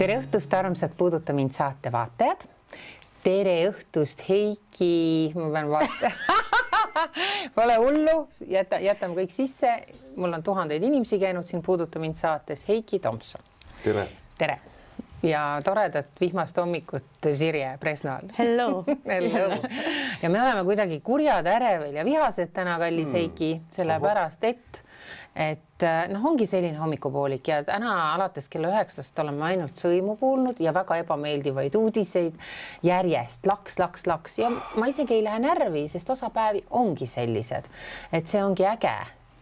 Tere õhtust, armsad Puuduta mind saate vaatajad. Tere õhtust, Heiki. Ma pean vaatama. Pole hullu, jätame kõik sisse. Mul on tuhandeid inimesi käinud siin Puuduta mind saates. Heiki Tomson. Tere. Tere. Ja toredat vihmast hommikut Sirje Presnal. Hello. Hello. Ja me oleme kuidagi kurjad, ärevel ja vihased täna, kallis Heiki, sellepärast, et ongi selline hommikupoolik ja täna alates kella 9 oleme ainult sõimu kuulnud ja väga ebameeldivaid uudiseid järjest laks ja ma isegi ei lähe närvi, sest osa päevi ongi sellised, et see ongi äge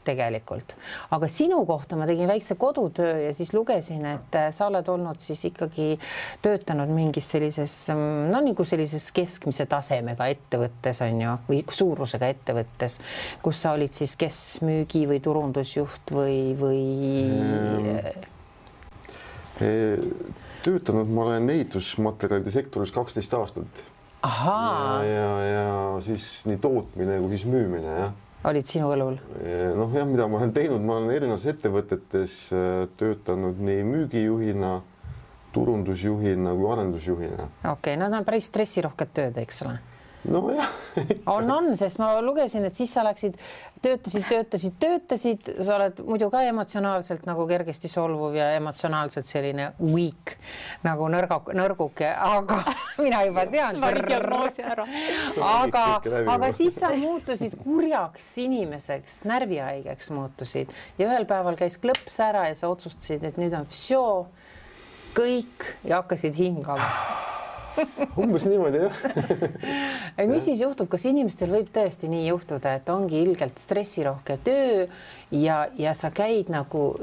tegelikult. Aga sinu kohta ma tegin väikse kodutöö ja siis lugesin, et sa oled olnud siis ikkagi töötanud mingis sellises, nagu sellises keskmise tasemega ettevõttes on ju, või suurusega ettevõttes, kus sa olid siis kes müügi või turundusjuht või... Töötanud ma olen ehitusmaterjalide sektoris 12 aastat. Ahaa. Ja siis nii tootmine kui siis müümine, jah. Olid sinu õlul? Jah, mida ma olen teinud, ma olen erinevates ettevõtetes töötanud nii müügijuhina, turundusjuhina kui arendusjuhina. Okei, no see on päris stressirohked tööd, eks ole? No jah. On, sest ma lugesin, et siis sa läksid, töötasid, sa oled muidu ka emotsionaalselt nagu kergesti solvuv ja emotsionaalselt selline weak, nagu nõrguke, aga mina juba tean. Aga siis sa muutusid kurjaks inimeseks, närvihaigeks muutusid ja ühel päeval käis klõps ära ja sa otsustasid, et nüüd on kõik ja hakkasid hingama. Umbes niimoodi, jah. Mis siis juhtub, kas inimestel võib tõesti nii juhtuda, et ongi ilgelt stressirohke töö ja sa käid nagu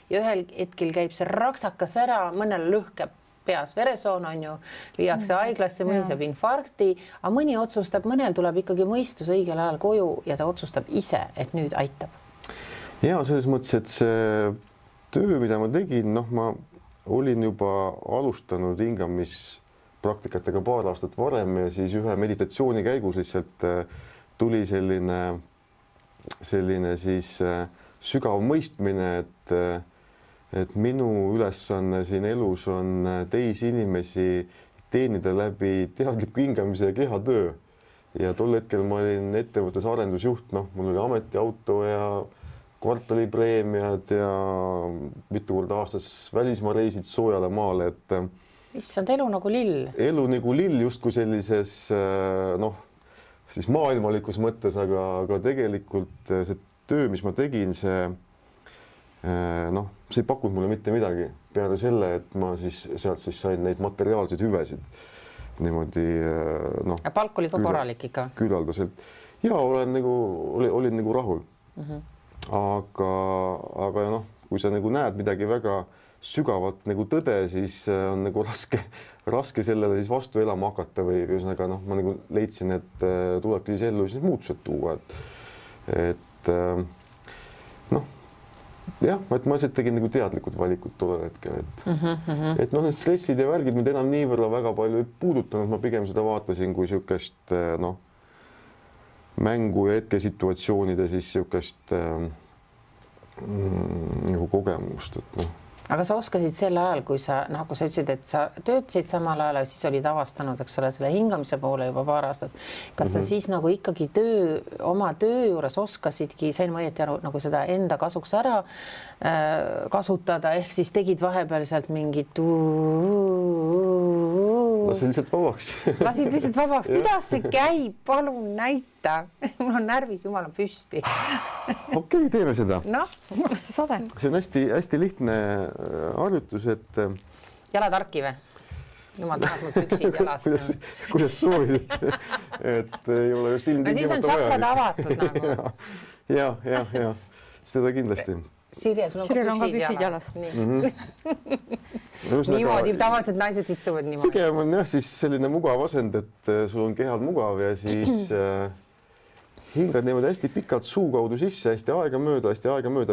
ja ühel hetkel käib see raksakas ära, mõnel lõhkeb peas veresoon on ju, viiakse haiglasse, mõni saab infarkti, aga mõni otsustab, mõnel tuleb ikkagi mõistus õigel ajal koju ja ta otsustab ise, et nüüd aitab. Ja selles mõttes, et see töö, mida ma tegin, ma olin juba alustanud hingamispraktikatega paar aastat varem ja siis ühe meditatsiooni käigus lihtsalt tuli selline siis sügav mõistmine, et minu ülesanne siin elus on teisi inimesi teenida läbi teadliku hingamise ja kehatöö. Ja tol hetkel ma olin ettevõttes arendusjuht, mul oli ametiauto ja kvartalipreemiad ja mitu korda aastas välismaa reisid soojale maale, et issand, elu nagu lill. Elu nagu lill justkui sellises siis maailmalikus mõttes, aga tegelikult see töö, mis ma tegin, see ei pakkunud mulle mitte midagi peale selle, et ma siis sealt sain neid materiaalseid hüvesid niimoodi ja palk oli ka korralik ikka? Küllaldaselt. Ja olin nagu rahul. Aga kui sa nagu näed midagi väga sügavat nagu tõde, siis on nagu raske sellele siis vastu elama hakata või ühesõnaga ma nagu leidsin, et tulebki siis ellu siis muutused tuua, et ma lihtsalt tegin nagu teadlikud valikud tollel hetkel, et need stressid ja värgid mind enam niivõrra väga palju ei puudutanud, ma pigem seda vaatasin kui siukest mängu ja hetkesituatsioonide siis siukest nagu kogemust, et Aga sa oskasid sel ajal, kui sa ütlesid, et sa töötasid samal ajal ja siis olid avastanud, eks ole, selle hingamise poole juba paar aastat. Kas sa siis nagu ikkagi oma töö juures oskasidki, sain ma õieti aru, nagu seda enda kasuks ära kasutada, ehk siis tegid vahepeal sealt mingit Lasid lihtsalt vabaks. Lasid lihtsalt vabaks. Kuidas see käib? Palun näita. Mul on närvid jumala püsti. Okei, teeme seda. See on hästi lihtne harjutus, et... Jalad harki või? Jumal tahab mul püksid jalast. Kuidas soovid, et ei ole just ilmtingimata vaja. No siis on tšakrad avatud nagu. Ja, seda kindlasti. Sirje, sul on ka püksid jalast. Niimoodi, tavaliselt naised istuvad niimoodi. Pigem on jah siis selline mugav asend, et sul on kehal mugav ja siis hingad niimoodi hästi pikalt suu kaudu sisse, hästi aegamööda,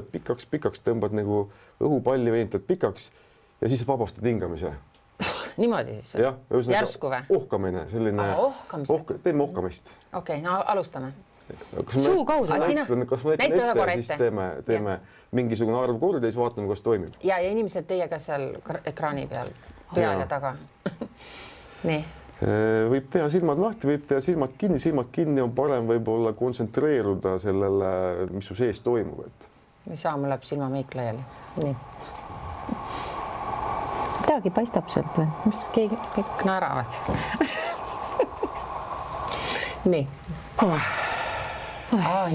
pikaks tõmbad nagu õhupalli veenitad pikaks ja siis vabastad hingamise. Niimoodi siis? Jah, järsku või? Ohkamine, selline... Ohkamise? Teeme ohkamist. Okei, no alustame. Suu kaudu. Kas ma näitan ette ja siis teeme mingisugune arv korda ja siis vaatame, kas toimib. Ja inimesed teiega seal ekraani peal ja taga. Nii. Võib teha silmad lahti, võib teha silmad kinni on parem võib-olla kontsentreeruda sellele, mis su sees toimub. Ei saa, mul läheb silmameik laiali. Nii. Midagi paistab sealt või? Mis kõik naeravad? Nii.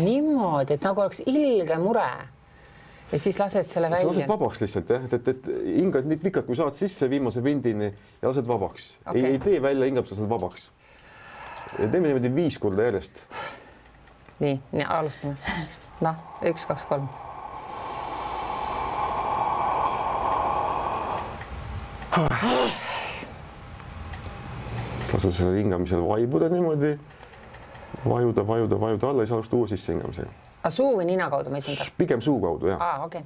Niimoodi, et nagu oleks ilge mure. Ja siis lased selle välja. Lased vabaks lihtsalt, et hingad nii pikalt, kui saad sisse viimase vindini ja lased vabaks. Ei tee välja hingab, sa saad vabaks. Ja teeme niimoodi 5 korda järjest. Nii, alustame. 1, 2, 3. Lase selle hingamisel vaibuda niimoodi. Vajuda alla ja sa alusta uue sisse hingamisega. Suu või nina kaudu ma esindan? Pigem suu kaudu, jah. Okei.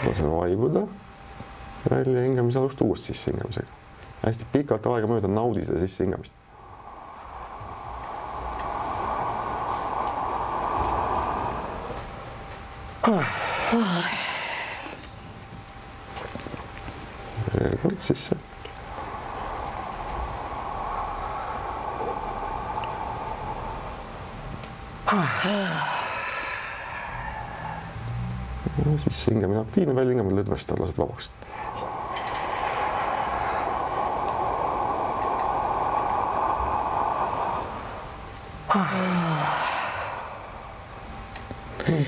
Lase vaibuda. Välja hingamise alusta uus sisse hingamisega. Hästi pikalt aega mööda naudi seda sisse hingamist. Kord sisse. Siis hingamine aktiivne, välja hingamine lõdvest lased vabaks.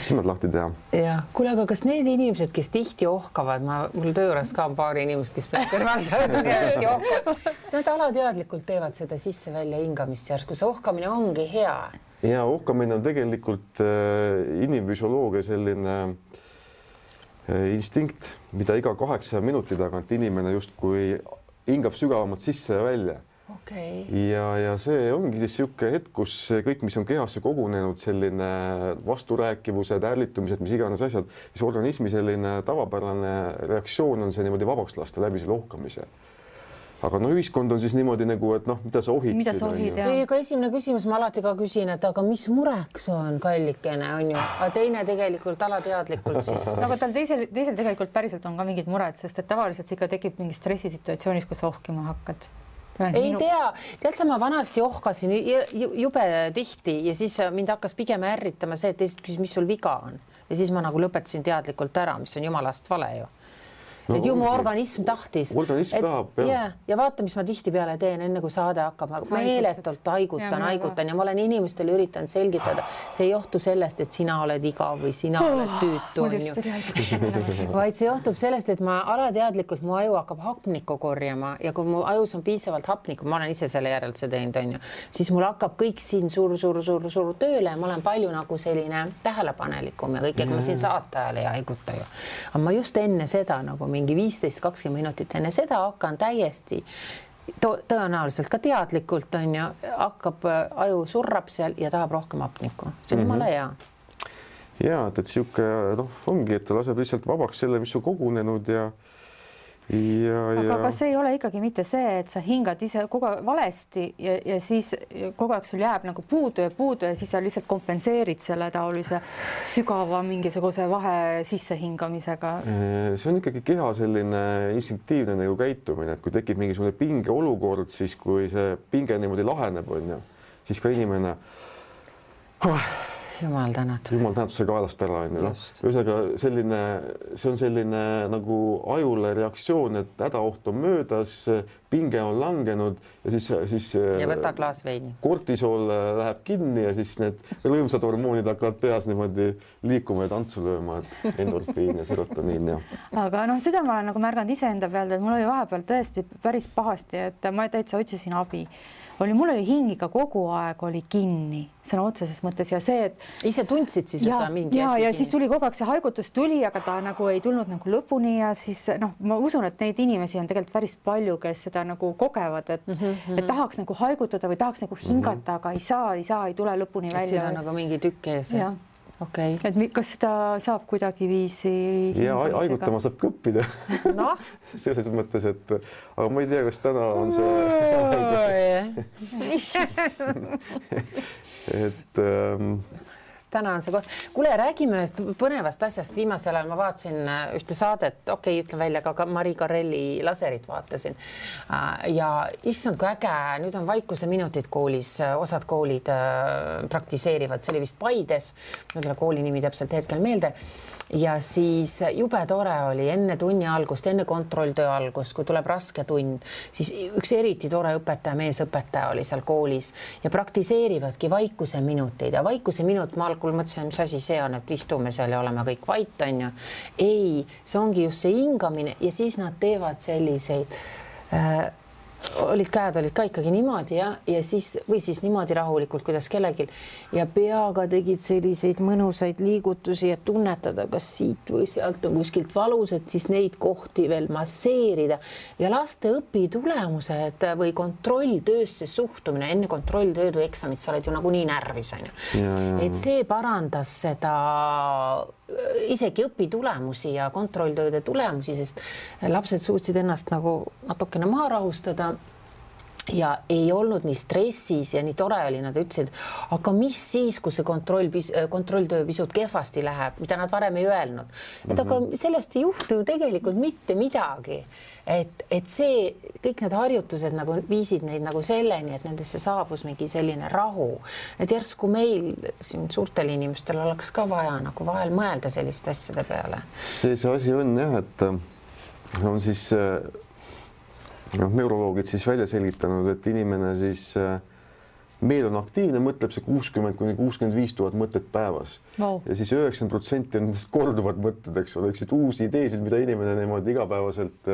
Silmad lahti teha. Ja, kuule, aga kas need inimesed, kes tihti ohkavad, mul tööres ka on paari inimest, kes kõrvalt tugevasti ohkavad, nad alateadlikult teevad seda sisse-välja hingamist järsku, see ohkamine ongi hea. Ja ohkamine on tegelikult inimfüsioloogia selline instinkt, mida iga 8 minuti tagant inimene justkui hingab sügavamalt sisse ja välja. Ja see ongi siis niisugune hetk, kus kõik, mis on kehasse kogunenud, selline vasturääkivused, ärlitumised, mis iganes asjad, siis organismi selline tavapärane reaktsioon on see niimoodi vabaks lasta läbi selle ohkamise. Aga ühiskond on siis niimoodi nagu, et mida sa ohid? Mida sa ohid, jah? Aga esimene küsimus ma alati ka küsin, et aga mis mureks on kallikene, on ju? Aga teine tegelikult alateadlikult siis. Aga tal teisel tegelikult päriselt on ka mingid mured, sest et tavaliselt see ikka tekib mingi stressisituatsioonis, kus ohkima hakkad. Ei tea, tead sa ma vanasti ohkasin jube tihti ja siis mind hakkas pigem ärritama see, et teised küsis, mis sul viga on. Ja siis ma nagu lõpetasin teadlikult ära, mis on jumalast vale ju. Et ju mu organism tahtis. Organism tahab, jah. Ja vaata, mis ma tihtipeale teen enne, kui saade hakkab. Meeletult haigutan ja ma olen inimestele üritanud selgitada. See ei johtu sellest, et sina oled igav või sina oled tüütu, on ju. Vaid see johtub sellest, et ma alateadlikult mu aju hakkab hapnikku korjama ja kui mu ajus on piisavalt hapnikku, ma olen ise selle järelduse teinud, on ju, siis mul hakkab kõik siin suur tööle ja ma olen palju nagu selline tähelepanelikum ja kõik, ega ma siin saate ajal ei haiguta ju. Aga ma just enne seda nagu mingi 15-20 minutit enne seda hakkan täiesti tõenäoliselt ka teadlikult on ju, hakkab aju surrab seal ja tahab rohkem hapnikku. See on jumala hea. Ja, et siuke ongi, et ta laseb lihtsalt vabaks selle, mis on kogunenud ja aga kas ei ole ikkagi mitte see, et sa hingad ise kogu aeg valesti ja siis kogu aeg sul jääb nagu puudu ja siis sa lihtsalt kompenseerid selle taolise sügava mingisuguse vahe sissehingamisega? See on ikkagi keha selline instinktiivne nagu käitumine, et kui tekib mingisugune pinge olukord, siis kui see pinge niimoodi laheneb, on ju, siis ka inimene Jumal tänatud. Jumal tänatud see kaelast ära, on ju. Ühesõnaga see on selline nagu ajule reaktsioon, et hädaoht on möödas, pinge on langenud ja siis ja võta klaas veini. Kortisool läheb kinni ja siis need rõõmsad hormoonid hakkavad peas niimoodi liikuma ja tantsu lööma, et endorfiin ja serotoniin ja. Aga seda ma olen nagu märganud iseenda pealt, et mul oli vahepeal tõesti päris pahasti, et ma täitsa otsisin abi. Mul oli hing ikka kogu aeg oli kinni, sõna otseses mõttes ja see, et ise tundsid siis, et ta mingi ja siis tuli kogu aeg see haigutus tuli, aga ta nagu ei tulnud nagu lõpuni ja siis ma usun, et neid inimesi on tegelikult päris palju, kes seda nagu kogevad, et tahaks nagu haigutada või tahaks nagu hingata, aga ei saa, ei tule lõpuni välja. Siin on nagu mingi tükk ees. Okay. Et kas seda saab kuidagi viisi? Ja haigutama saab ka õppida. No? Selles mõttes, et aga ma ei tea, kas täna on see täna on see koht. Kuule, räägime ühest põnevast asjast. Viimasel ajal ma vaatasin ühte saadet, ütlen välja, ka Marie Carrelli laserit vaatasin. Ja issand, kui äge, nüüd on vaikuse minutid koolis, osad koolid praktiseerivad, see oli vist Paides, ma ei tule kooli nimi täpselt hetkel meelde. Ja siis jube tore oli enne tunni algust, enne kontrolltöö algust, kui tuleb raske tund, siis üks eriti tore õpetaja, meesõpetaja oli seal koolis ja praktiseerivadki vaikuse minuteid ja vaikuse minut ma algul mõtlesin, mis asi see on, et istume seal ja oleme kõik vait, on ju. Ei, see ongi just see hingamine ja siis nad teevad selliseid käed olid ka ikkagi niimoodi ja siis või siis niimoodi rahulikult, kuidas kellelgi ja peaga tegid selliseid mõnusaid liigutusi ja tunnetada, kas siit või sealt on kuskilt valus, et siis neid kohti veel masseerida ja laste õpitulemused või kontrolltöösse suhtumine enne kontrolltööd või eksamit, sa oled ju nagunii närvis, on ju. Et see parandas seda isegi õpitulemusi ja kontrolltööde tulemusi, sest lapsed suutsid ennast nagu natukene maha rahustada ja ei olnud nii stressis ja nii tore oli, nad ütlesid, aga mis siis, kui see kontrolltöö pisut kehvasti läheb, mida nad varem ei öelnud. Et aga sellest ei juhtu ju tegelikult mitte midagi. Et see, kõik need harjutused nagu viisid neid nagu selleni, et nendesse saabus mingi selline rahu. Et järsku meil siin suurtel inimestel oleks ka vaja nagu vahel mõelda selliste asjade peale. See asi on jah, et on siis neuroloogid siis välja selgitanud, et inimene siis meil on aktiivne, mõtleb see 60 kuni 65 000 mõtet päevas ja siis 90% on nendest korduvad mõtted, eks ole, uusi ideesid, mida inimene niimoodi igapäevaselt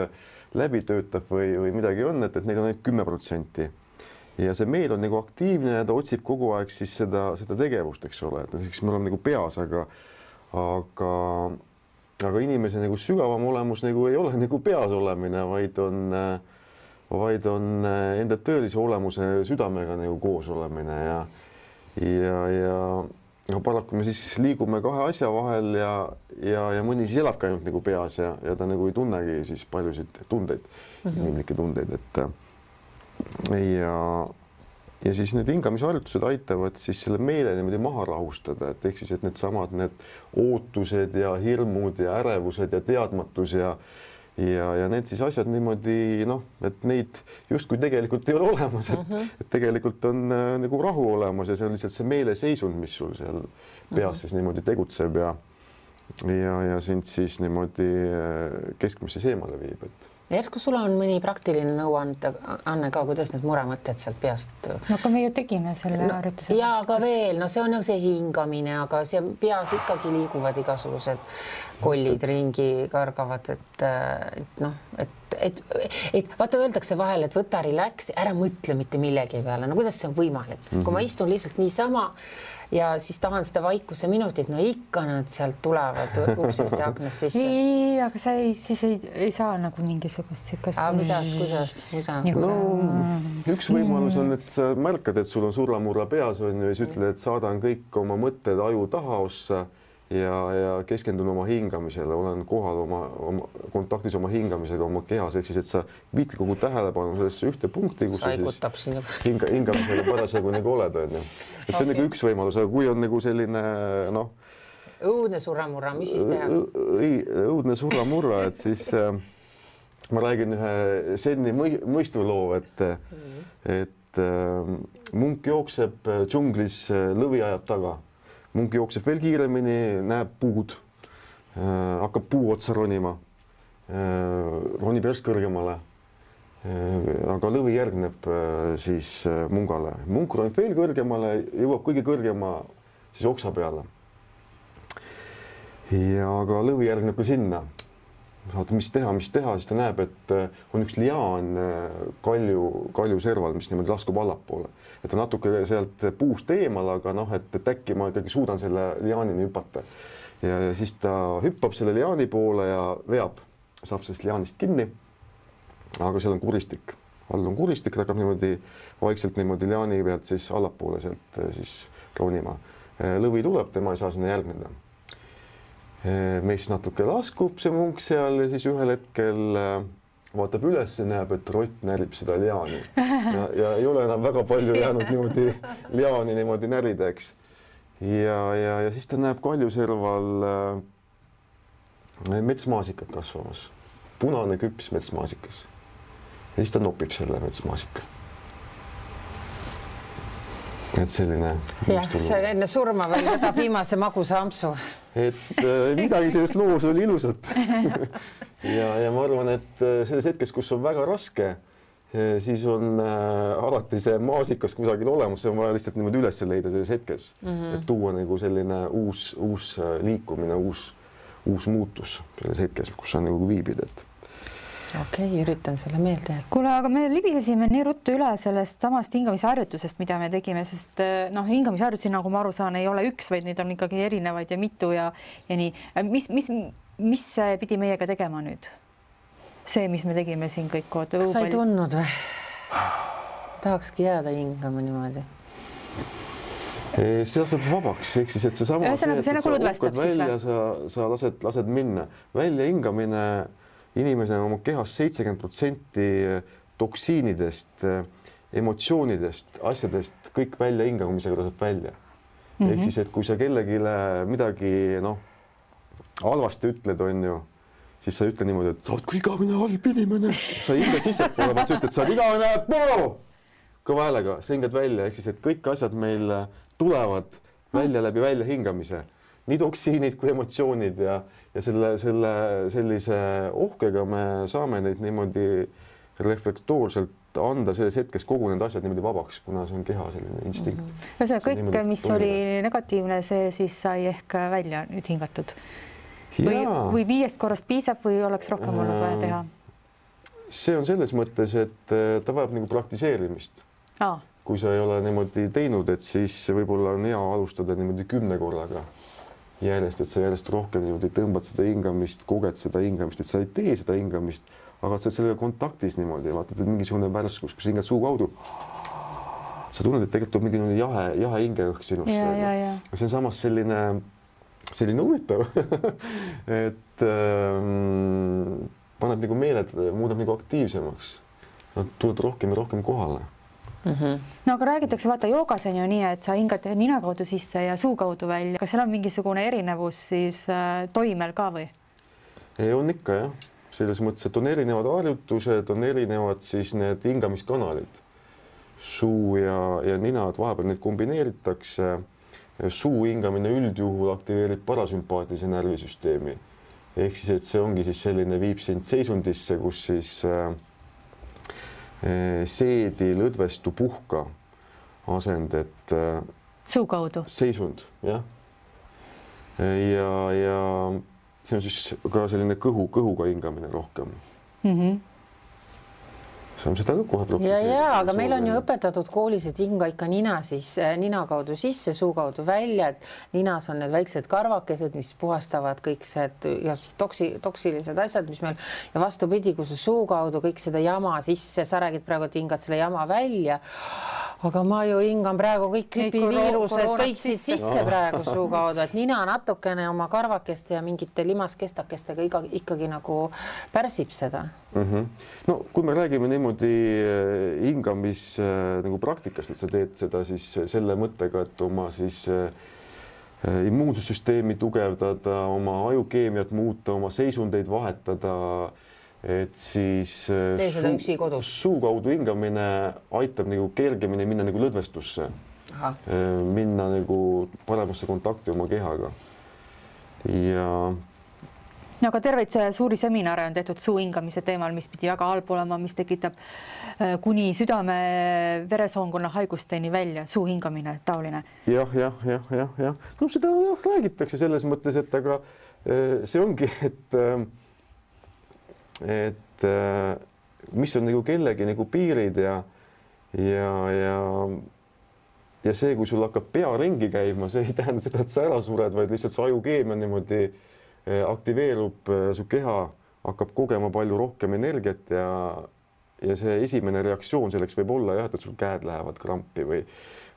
läbi töötab või midagi on, et neil on ainult 10%. Ja see meil on nagu aktiivne ja ta otsib kogu aeg siis seda tegevust, eks ole, et näiteks me oleme nagu peas, aga inimese nagu sügavam olemus nagu ei ole nagu peas olemine, vaid on enda tõelise olemuse südamega nagu koos olemine ja paraku me siis liigume kahe asja vahel ja mõni siis elabki ainult nagu peas ja ta nagu ei tunnegi siis paljusid tundeid, inimlikke tundeid, ja siis need hingamisharjutused aitavad siis selle meele niimoodi maha rahustada, et ehk siis, et need ootused ja hirmud ja ärevused ja teadmatus ja need siis asjad niimoodi, et neid justkui tegelikult ei ole olemas, et tegelikult on nagu rahu olemas ja see on lihtsalt see meeleseisund, mis sul seal peas siis niimoodi tegutseb ja sind siis niimoodi keskmisse seemale viib, Järsku sul on mõni praktiline nõuanne ka, kuidas need muremõtted sealt peast? No aga me ju tegime selle harjutuse. Ja aga veel, see on ju see hingamine, aga see peas ikkagi liiguvad igasugused kollid ringi kargavad, et vaata öeldakse vahel, et võta relax, ära mõtle mitte millegi peale. No kuidas see on võimalik? Kui ma istun lihtsalt niisama ja siis tahan seda vaikuse minutit, no ikka nad sealt tulevad uksest ja aknast sisse. Ei, aga sa siis ei saa nagu mingisugust sikast. Kuidas? No, üks võimalus on, et sa märkad, et sul on surramurra peas on ja siis ütled, et saadan kõik oma mõtted aju tahaossa ja keskendun oma hingamisele, olen kohal oma kontaktis oma hingamisega, oma kehas, ehk siis, et sa viid kogu tähelepanu sellesse ühte punkti, kus sa siis hingamisega parasjagu nagu oled, on ju. Et see on nagu üks võimalus, aga kui on nagu selline, õudne surramurra, mis siis teha? Õudne surramurra, et siis ma räägin ühe senni mõistuloo, et munk jookseb džunglis, lõvi ajab taga. Munk jookseb veel kiiremini, näeb puud, hakkab puu otsa ronima, ronib järsk kõrgemale, aga lõvi järgneb siis mungale. Munk ronib veel kõrgemale, jõuab kõige kõrgema siis oksa peale. Ja aga lõvi järgneb ka sinna. Vaata, mis teha, siis ta näeb, et on üks liaan kalju serval, mis niimoodi laskub allapoole. Et ta natuke sealt puust eemal, aga et äkki ma ikkagi suudan selle liaanini hüpata. Ja siis ta hüppab selle liaani poole ja veab, saab sellest liaanist kinni, aga seal on kuristik. All on kuristik, ta hakkab niimoodi vaikselt niimoodi liaani pealt siis allapoole sealt siis ronima. lõvi tuleb, tema ei saa sinna järgneda. Meist natuke laskub see munk seal ja siis ühel hetkel vaatab üles ja näeb, et rott närib seda liaani ja ei ole enam väga palju jäänud niimoodi liaani niimoodi närida, eks. Ja siis ta näeb kaljuserval metsmaasikat kasvamas, punane küps metsmaasikas. Ja siis ta nopib selle metsmaasika. Et selline... Jah, see enne surma veel võtab viimase magusa ampsu. Et midagi sellest loos oli ilusat. Ja ma arvan, et selles hetkes, kus on väga raske, siis on alati see maasikas kusagil olemas, see on vaja lihtsalt niimoodi üles leida selles hetkes, et tuua nagu selline uus liikumine, uus muutus selles hetkes, kus sa nagu viibid, et Okei, üritan selle meelde. Kuule, aga me libisesime nii ruttu üle sellest samast hingamisharjutusest, mida me tegime, sest hingamisharjutusi, nagu ma aru saan, ei ole üks, vaid neid on ikkagi erinevaid ja mitu ja nii. Mis pidi meiega tegema nüüd? See, mis me tegime siin kõik kood. Kas sa ei tundnud või? Tahakski jääda hingama niimoodi. See saab vabaks, ehk siis, et see sama sa uhkad välja, sa lased minna. Välja hingamine inimesena oma kehast 70% toksiinidest, emotsioonidest, asjadest, kõik välja hingamisega laseb välja. Ehk siis, et kui sa kellegile midagi halvasti ütled, on ju, siis sa ütle niimoodi, et oot, kui igavene halb inimene. Sa hinga sissepoole, vaat sa ütled, sa oled igavene kõva häälega, sa hingad välja, ehk siis, et kõik asjad meil tulevad välja läbi välja hingamise. Nii toksiinid kui emotsioonid ja sellise ohkega me saame neid niimoodi reflektoorselt anda selles hetkes kogu need asjad niimoodi vabaks, kuna see on keha selline instinkt. Kõik, mis oli negatiivne, see siis sai ehk välja nüüd hingatud. Või 5 korrast piisab või oleks rohkem olnud vaja teha? See on selles mõttes, et ta vajab nagu praktiseerimist. Kui sa ei ole niimoodi teinud, et siis võib-olla on hea alustada niimoodi 10 korraga järjest, et sa järjest rohkem niimoodi tõmbad seda hingamist, koged seda hingamist, et sa ei tee seda hingamist, aga sa oled sellega kontaktis niimoodi, vaatad, et mingisugune värskus, kus hingad suu kaudu. Sa tunned, et tegelikult tuleb mingi jahe hingeõhk sinusse. See on samas selline huvitav, et paned nagu meeled, muudab nagu aktiivsemaks. Tuled rohkem ja rohkem kohale. No aga räägitakse, vaata joogas on ju nii, et sa hingad nina kaudu sisse ja suu kaudu välja. Kas seal on mingisugune erinevus siis toimel ka või? On ikka jah. Selles mõttes, et on erinevad harjutused, on erinevad siis need hingamiskanalid. Suu ja nina, et vahepeal neid kombineeritakse. Suu hingamine üldjuhul aktiveerib parasümpaatilise närvisüsteemi. Ehk siis, et see ongi siis selline viib sind seisundisse, kus siis seedi, lõdvestu, puhka asend, et suu kaudu seisund, jah. Ja see on siis ka selline kõhuga hingamine rohkem. Saame seda ka kohe protsesseerida. Ja, aga meil on ju õpetatud koolis, et hinga ikka nina kaudu sisse, suu kaudu välja, et ninas on need väiksed karvakesed, mis puhastavad kõik toksilised asjad, mis meil ja vastupidi, kui see suu kaudu kõik seda jama sisse, sa räägid praegu, et hingad selle jama välja, aga ma ju hingan praegu kõik gripiviirused, kõik sisse praegu suu kaudu, et nina natukene oma karvakeste ja mingite limaskestakestega ikkagi nagu pärsib seda. No kui me räägime niimoodi hingamis nagu praktikast, et sa teed seda siis selle mõttega, et oma siis immuunsussüsteemi tugevdada, oma ajukeemiat muuta, oma seisundeid vahetada, et siis suu kaudu hingamine aitab nagu kergemini minna nagu lõdvestusse, minna nagu paremasse kontakti oma kehaga. No aga terveid suuri seminare on tehtud suu hingamise teemal, mis pidi väga halb olema, mis tekitab kuni südame veresoonkonna haigusteni välja, suu hingamine, taoline. Jah. No seda räägitakse selles mõttes, et aga see ongi, et mis on nagu kellegi nagu piirid ja see, kui sul hakkab pea ringi käima, see ei tähenda seda, et sa ära sured, vaid lihtsalt su ajukeemia niimoodi aktiveerub, su keha hakkab kogema palju rohkem energiat ja see esimene reaktsioon selleks võib olla jah, et sul käed lähevad krampi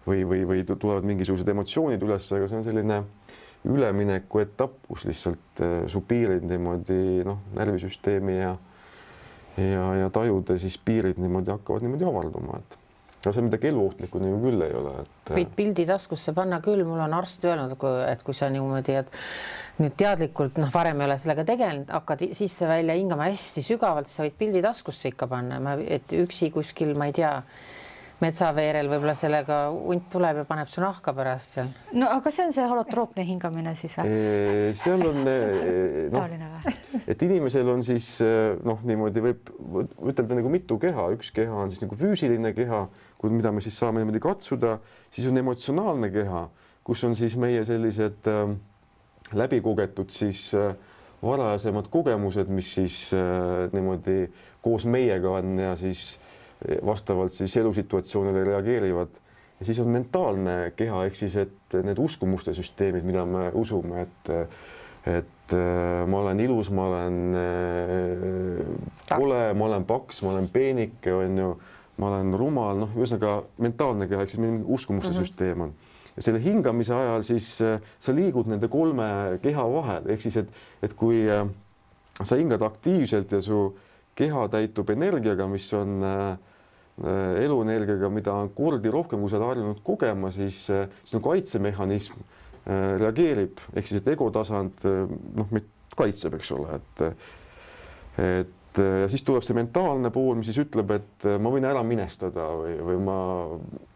või tulevad mingisugused emotsioonid üles, aga see on selline ülemineku etapp, kus lihtsalt su piirid niimoodi närvisüsteemi ja tajude siis piirid niimoodi hakkavad niimoodi avarduma, et no see midagi eluohtlikku nagu küll ei ole, et võid pildi taskusse panna küll, mul on arst öelnud, et kui sa niimoodi, et nüüd teadlikult, varem ei ole sellega tegelenud, hakkad sisse-välja hingama hästi sügavalt, sa võid pildi taskusse ikka panna, et üksi kuskil, ma ei tea, metsaveerel võib-olla sellega hunt tuleb ja paneb su nahka pärast seal. No aga see on see holotroopne hingamine siis või? Seal on taoline või? Et inimesel on siis niimoodi võib ütelda nagu mitu keha, üks keha on siis nagu füüsiline keha, mida me siis saame niimoodi katsuda, siis on emotsionaalne keha, kus on siis meie sellised läbikogetud siis varasemad kogemused, mis siis niimoodi koos meiega on ja siis vastavalt siis elusituatsioonile reageerivad. Ja siis on mentaalne keha, ehk siis, et need uskumuste süsteemid, mida me usume, et ma olen ilus, ma olen kole, ma olen paks, ma olen peenike, on ju, ma olen rumal, ühesõnaga mentaalne keha, ehk siis mingi uskumuste süsteem on. Ja selle hingamise ajal siis sa liigud nende kolme keha vahel, ehk siis, et kui sa hingad aktiivselt ja su keha täitub energiaga, mis on eluenergiaga, mida on kordi rohkem, kui sa oled harjunud kogema, siis kaitsemehhanism reageerib, ehk siis, et egotasand kaitseb, eks ole, et ja siis tuleb see mentaalne pool, mis siis ütleb, et ma võin ära minestada või ma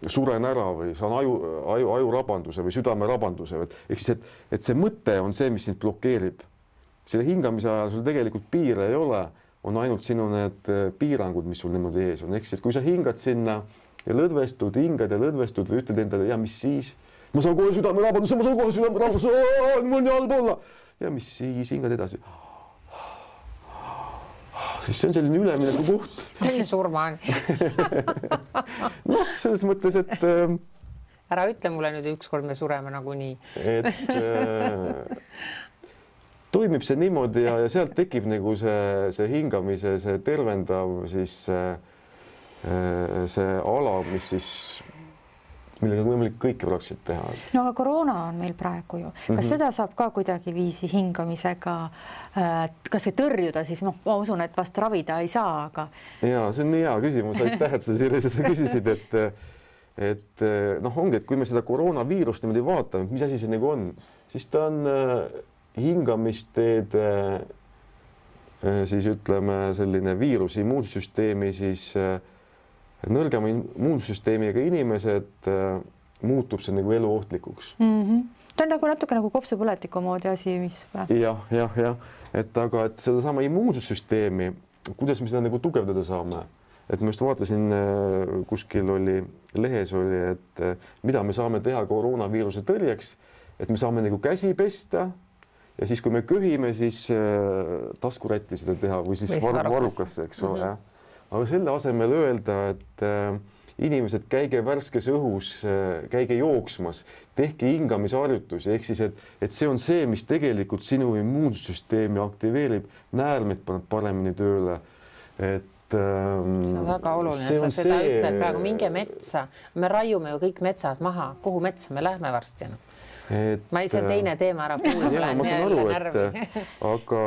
suren ära või saan ajurabanduse või südamerabanduse, ehk siis, et see mõte on see, mis sind blokeerib. Selle hingamise ajal sul tegelikult piire ei ole, on ainult sinu need piirangud, mis sul niimoodi ees on. Ehk siis, et kui sa hingad sinna ja lõdvestud, hingad ja lõdvestud või ütled endale, ja mis siis? Ma saan kohe südamerabanduse, mul on nii halb olla. Ja mis siis? Hingad edasi. Siis see on selline ülemineku koht. Kui surma on? Selles mõttes, et ära ütle mulle nüüd ükskord me sureme nagunii. Et toimib see niimoodi ja sealt tekib nagu see hingamise, see tervendav siis see ala, mis siis, millega võimalik kõike praktiliselt teha. No aga koroona on meil praegu ju. Kas seda saab ka kuidagi viisi hingamisega kas või tõrjuda siis? Ma usun, et vast ravida ei saa, aga... Jaa, see on nii hea küsimus. Aitäh, et sa sellised küsisid, et ongi, et kui me seda koroonaviirust niimoodi vaatame, mis asi see nagu on, siis ta on hingamisteede siis ütleme selline viirus immuunsüsteemi siis nõrgema immuunsüsteemiga inimesed muutub see nagu eluohtlikuks. Ta on nagu natuke nagu kopsupõletiku moodi asi, mis... Jah, et aga et sedasama immuunsüsteemi, kuidas me seda nagu tugevdada saame, et ma just vaatasin, kuskil oli, lehes oli, et mida me saame teha koroonaviiruse tõrjeks, et me saame nagu käsi pesta ja siis, kui me köhime, siis taskurätti seda teha või siis varrukasse, eks ole. Aga selle asemel öelda, et inimesed käige värskes õhus, käige jooksmas, tehke hingamisharjutusi, ehk siis, et see on see, mis tegelikult sinu immuunsüsteemi aktiveerib, näärmed paneb paremini tööle, et see on väga oluline, sa seda ütled praegu, minge metsa, me raiume ju kõik metsad maha, kuhu metsa me lähme varsti? Ma ei saa teine teema ära kuulda. Jaa, ma saan aru, aga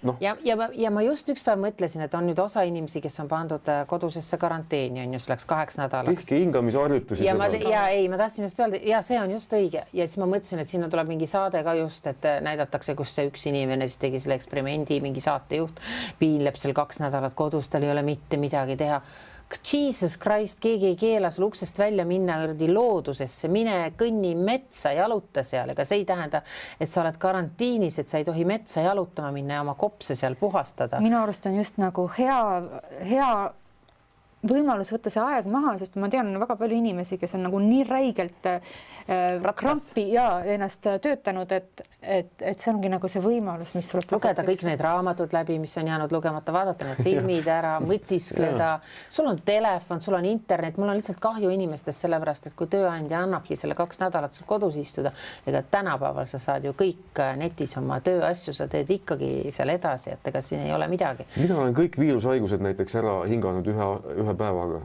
Ja ma just üks päev mõtlesin, et on nüüd osa inimesi, kes on pandud kodusesse karanteeni, on just läks 2 nädalaks. Tehke hingamisharjutusi. Ma tahtsin just öelda, ja see on just õige. Ja siis ma mõtlesin, et sinna tuleb mingi saade ka just, et näidatakse, kus see üks inimene siis tegi selle eksperimendi, mingi saatejuht piinleb seal 2 nädalat kodus, tal ei ole mitte midagi teha. Jesus Christ, keegi ei keela sul uksest välja minna loodusesse, mine kõnni metsa, jaluta seal, ega see ei tähenda, et sa oled karantiinis, et sa ei tohi metsa jalutama minna ja oma kopse seal puhastada. Minu arust on just nagu hea võimalus võtta see aeg maha, sest ma tean väga palju inimesi, kes on nagu nii räigelt krampi ja ennast töötanud, et see ongi nagu see võimalus, mis tuleb lugeda kõik need raamatud läbi, mis on jäänud lugemata, vaadata need filmid ära, mõtiskleda. Sul on telefon, sul on internet, mul on lihtsalt kahju inimestest sellepärast, et kui tööandja annabki selle 2 nädalat sul kodus istuda, ega tänapäeval sa saad ju kõik netis oma tööasju, sa teed ikkagi seal edasi, et ega siin ei ole midagi. Mina olen kõik viirushaigused näiteks ära hinganud ühe päevaga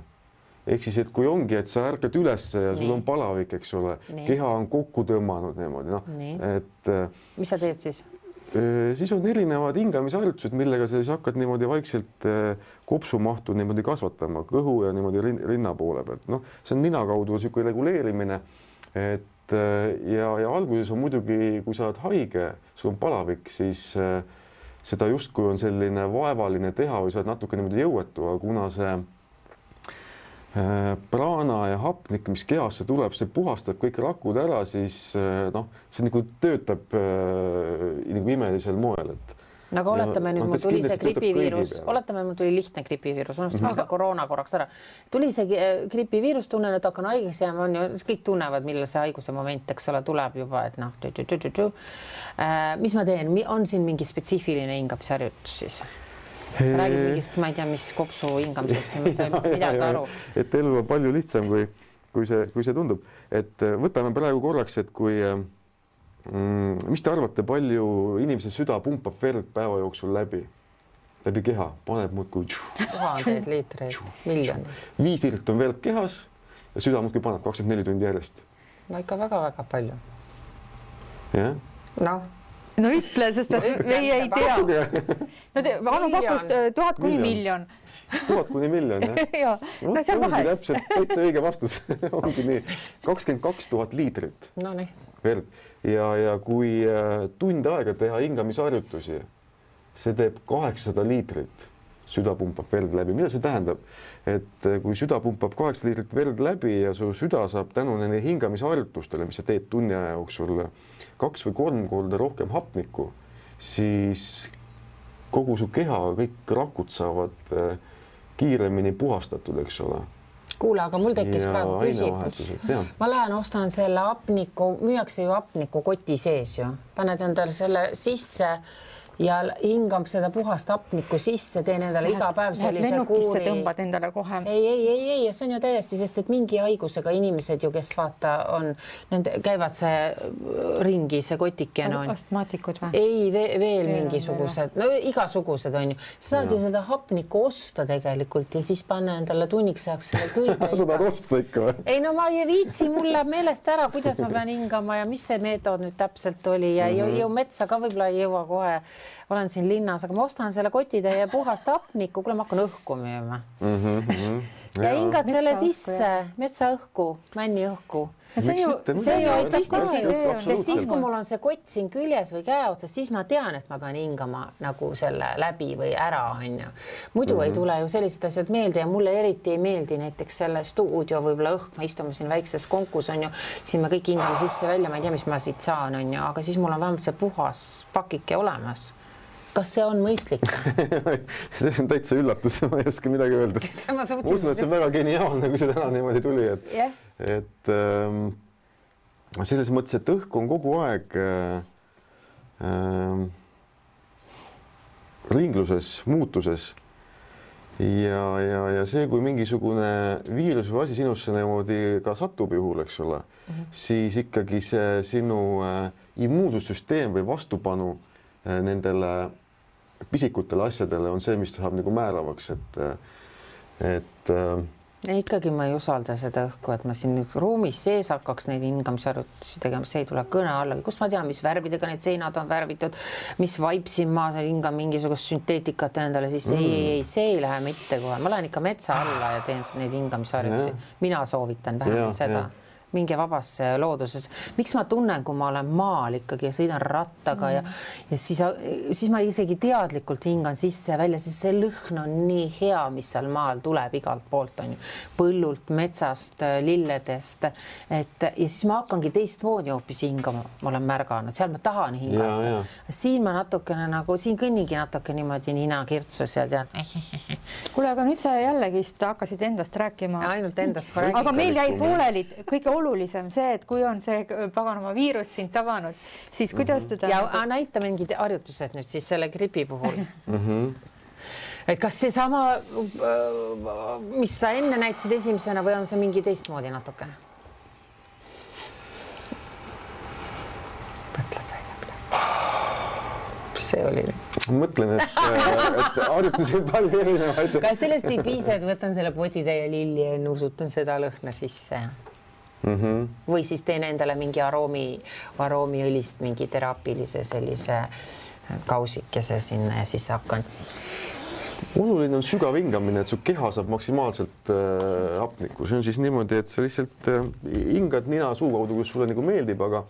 ehk siis, et kui ongi, et sa ärkad üles ja sul on palavik, eks ole, keha on kokku tõmmanud niimoodi, noh, et mis sa teed siis? Siis on erinevad hingamisharjutused, millega sa siis hakkad niimoodi vaikselt kopsumahtu niimoodi kasvatama kõhu ja niimoodi rinna poole pealt. Noh, see on nina kaudu niisugune reguleerimine, et ja alguses on muidugi, kui sa oled haige, sul on palavik, siis seda justkui on selline vaevaline teha või sa oled natuke niimoodi jõuetu, aga kuna see praana ja hapnik, mis kehasse tuleb, see puhastab kõik rakud ära, siis noh, see nagu töötab nagu imelisel moel, et nagu oletame nüüd, mul tuli see gripiviirus, oletame, mul tuli lihtne gripiviirus, ma koroona korraks ära. Tuli see gripiviirus, tunnen, et hakkan haigeks jääma, on ju, kõik tunnevad, millal see haiguse moment, eks ole, tuleb juba, et noh, mis ma teen, on siin mingi spetsiifiline hingamisharjutus siis? Sa räägid mingist, ma ei tea, mis kopsu hingamisest, ma sain midagi aru. Et elu on palju lihtsam, kui see tundub. Et võtame praegu korraks, et kui, mis te arvate, palju inimese süda pumpab verd päeva jooksul läbi keha, paneb muudkui 1000 liitreid, miljoni. 5 liitrit on verd kehas ja süda muudkui paneb 24 tundi järjest. No ikka väga-väga palju. Jah? No ütle, sest meie ei tea. Anu pakkus 1000 kuni miljon. 1000 kuni miljon, jah? No seal vahest. Täpselt, täitsa õige vastus. Ongi nii. 22 000 liitrit verd. Ja kui tund aega teha hingamisharjutusi, see teeb 800 liitrit. Süda pumpab verd läbi. Mida see tähendab? Et kui süda pumpab 8 liitrit verd läbi ja su süda saab tänu nende hingamisharjutustele, mis sa teed tunni aja jooksul 2 või 3 korda rohkem hapnikku, siis kogu su keha, kõik rakud saavad kiiremini puhastatud, eks ole. Kuule, aga mul tekkis praegu küsimus. Ma lähen ostan selle hapniku, müüakse ju hapniku koti sees ju. Paned endale selle sisse ja hingab seda puhast hapnikku sisse, teen endale iga päev sellise kuuri. Tõmbad endale kohe. Ei, see on ju täiesti, sest et mingi haigusega inimesed ju, kes vaata on, käivad see ringi, see kotike on. Astmaatikud või? Ei, veel mingisugused, no igasugused on ju. Sa saad ju seda hapnikku osta tegelikult ja siis panna endale tunniks ajaks selle külge. Sa tahad osta ikka või? Ei, no ma ei viitsi, mul läheb meelest ära, kuidas ma pean hingama ja mis see meetod nüüd täpselt oli ja ju metsa ka võib-olla ei jõua kohe. Olen siin linnas, aga ma ostan selle kotitäie puhast hapnikku, kuule ma hakkan õhku müüma. Ja hingad selle sisse, metsaõhku, männiõhku. See ju aitab ka, sest siis, kui mul on see kott siin küljes või käe otsas, siis ma tean, et ma pean hingama nagu selle läbi või ära, on ju. Muidu ei tule ju sellised asjad meelde ja mulle eriti ei meeldi näiteks selle stuudio võib-olla õhk, me istume siin väikses konkus, on ju, siin me kõik hingame sisse välja, ma ei tea, mis ma siit saan, on ju, aga siis mul on vähemalt see puhas pakike olemas. Kas see on mõistlik? See on täitsa üllatus, ma ei oska midagi öelda. Ma usun, et see on väga geniaalne, kui see täna niimoodi tuli, et selles mõttes, et õhk on kogu aeg ringluses, muutuses ja see, kui mingisugune viirus või asi sinusse niimoodi ka satub juhul, eks ole, siis ikkagi see sinu immuunsussüsteem või vastupanu nendele pisikutele asjadele on see, mis saab nagu määravaks, et ikkagi ma ei usalda seda õhku, et ma siin nüüd ruumis sees hakkaks neid hingamisharjutusi tegema, see ei tule kõne alla. Kus ma tean, mis värvidega need seinad on värvitud, mis vaipsin ma hingan mingisugust sünteetikat endale, siis ei, see ei lähe mitte kohe. Ma lähen ikka metsa alla ja teen neid hingamisharjutusi. Mina soovitan vähemalt seda. Minge vabasse looduses. Miks ma tunnen, kui ma olen maal ikkagi ja sõidan rattaga ja siis ma isegi teadlikult hingan sisse ja välja, siis see lõhn on nii hea, mis seal maal tuleb igalt poolt, on ju. Põllult, metsast, lilledest. Ja siis ma hakkangi teistmoodi hoopis hingama, ma olen märganud. Seal ma tahan hingata. Siin ma natukene nagu, siin kõnnigi natuke niimoodi nina kirtsus ja tean. Kuule, aga nüüd sa jällegist hakkasid endast rääkima. Ainult endast ma räägin. Aga meil jäi pooleli kõige olulisem see, et kui on see paganama viirus sind tabanud, siis kuidas teda... Ja näita mingid harjutused nüüd siis selle gripi puhul. Et kas see sama, mis sa enne näitasid esimesena või on see mingi teistmoodi natuke? Mõtleb välja. Mis see oli? Mõtlen, et harjutusi on palju erinevaid. Kas sellest ei piisa, et võtan selle potitäie lilli ja nuusutan seda lõhna sisse? Või siis teen endale mingi aroomiõlist, mingi teraapilise sellise kausikese sinna ja siis hakkan. Oluline on sügav hingamine, et su keha saab maksimaalselt hapnikku. See on siis niimoodi, et sa lihtsalt hingad nina suu kaudu, kus sulle nagu meeldib, aga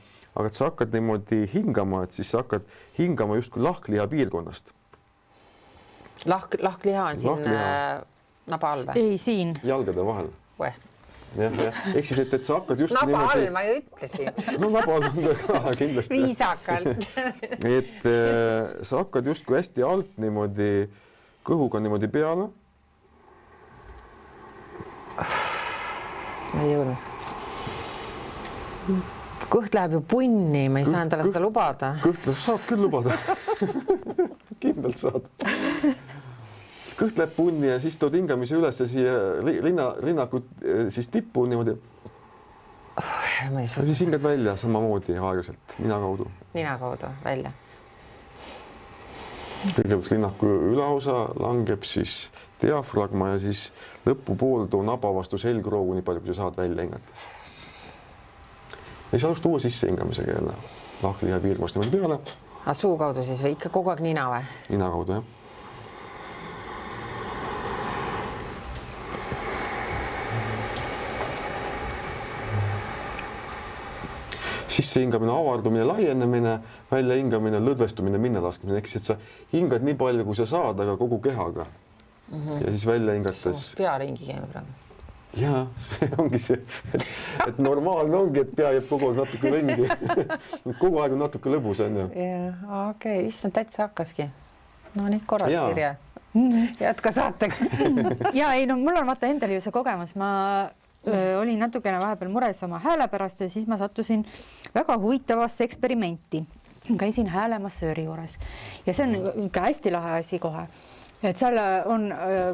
et sa hakkad niimoodi hingama, et siis sa hakkad hingama justkui lahkliha piirkonnast. Lahkliha on siin naba all või? Ei, siin. Jalgade vahel. Jah. Ehk siis, et sa hakkad just naba all, ma ju ütlesin. No naba all on ka kindlasti. Viisakalt. Et sa hakkad justkui hästi alt niimoodi kõhuga niimoodi peale. Ma ei jõudnud. Kõht läheb ju punni, ma ei saa endale seda lubada. Kõht saab küll lubada. Kindlalt saad. Kõht läheb punni ja siis tood hingamise üles ja siia rinnaku siis tippu niimoodi. Ja siis hingad välja samamoodi aeglaselt, nina kaudu. Nina kaudu, välja. Kõigepealt rinnaku ülaosa langeb siis diafragma ja siis lõpupool too naba vastu selgroogu nii palju, kui sa saad välja hingates. Ja siis alusta uue sisse hingamisega jälle. Lahkliha piirkonnast niimoodi peale. Suu kaudu siis või ikka kogu aeg nina või? Nina kaudu, jah. Sisse hingamine, avardumine, laienemine, välja hingamine, lõdvestumine, minna laskmine. Ehk siis, et sa hingad nii palju, kui sa saad, aga kogu kehaga. Ja siis välja hingates. Pea ringi käime praegu. Ja, see ongi see, et normaalne ongi, et pea jääb kogu aeg natuke ringi. Kogu aeg on natuke lõbus, on ju. Ja, okei, issand täitsa hakkaski. No nii korras, Sirje. Jätka saatega. Ja ei, no mul on vaata endal ju see kogemus. Ma olin natukene vahepeal mures oma hääle pärast ja siis ma sattusin väga huvitavasse eksperimenti. Käisin häälemassööri juures ja see on ikka hästi lahe asi kohe. Et seal on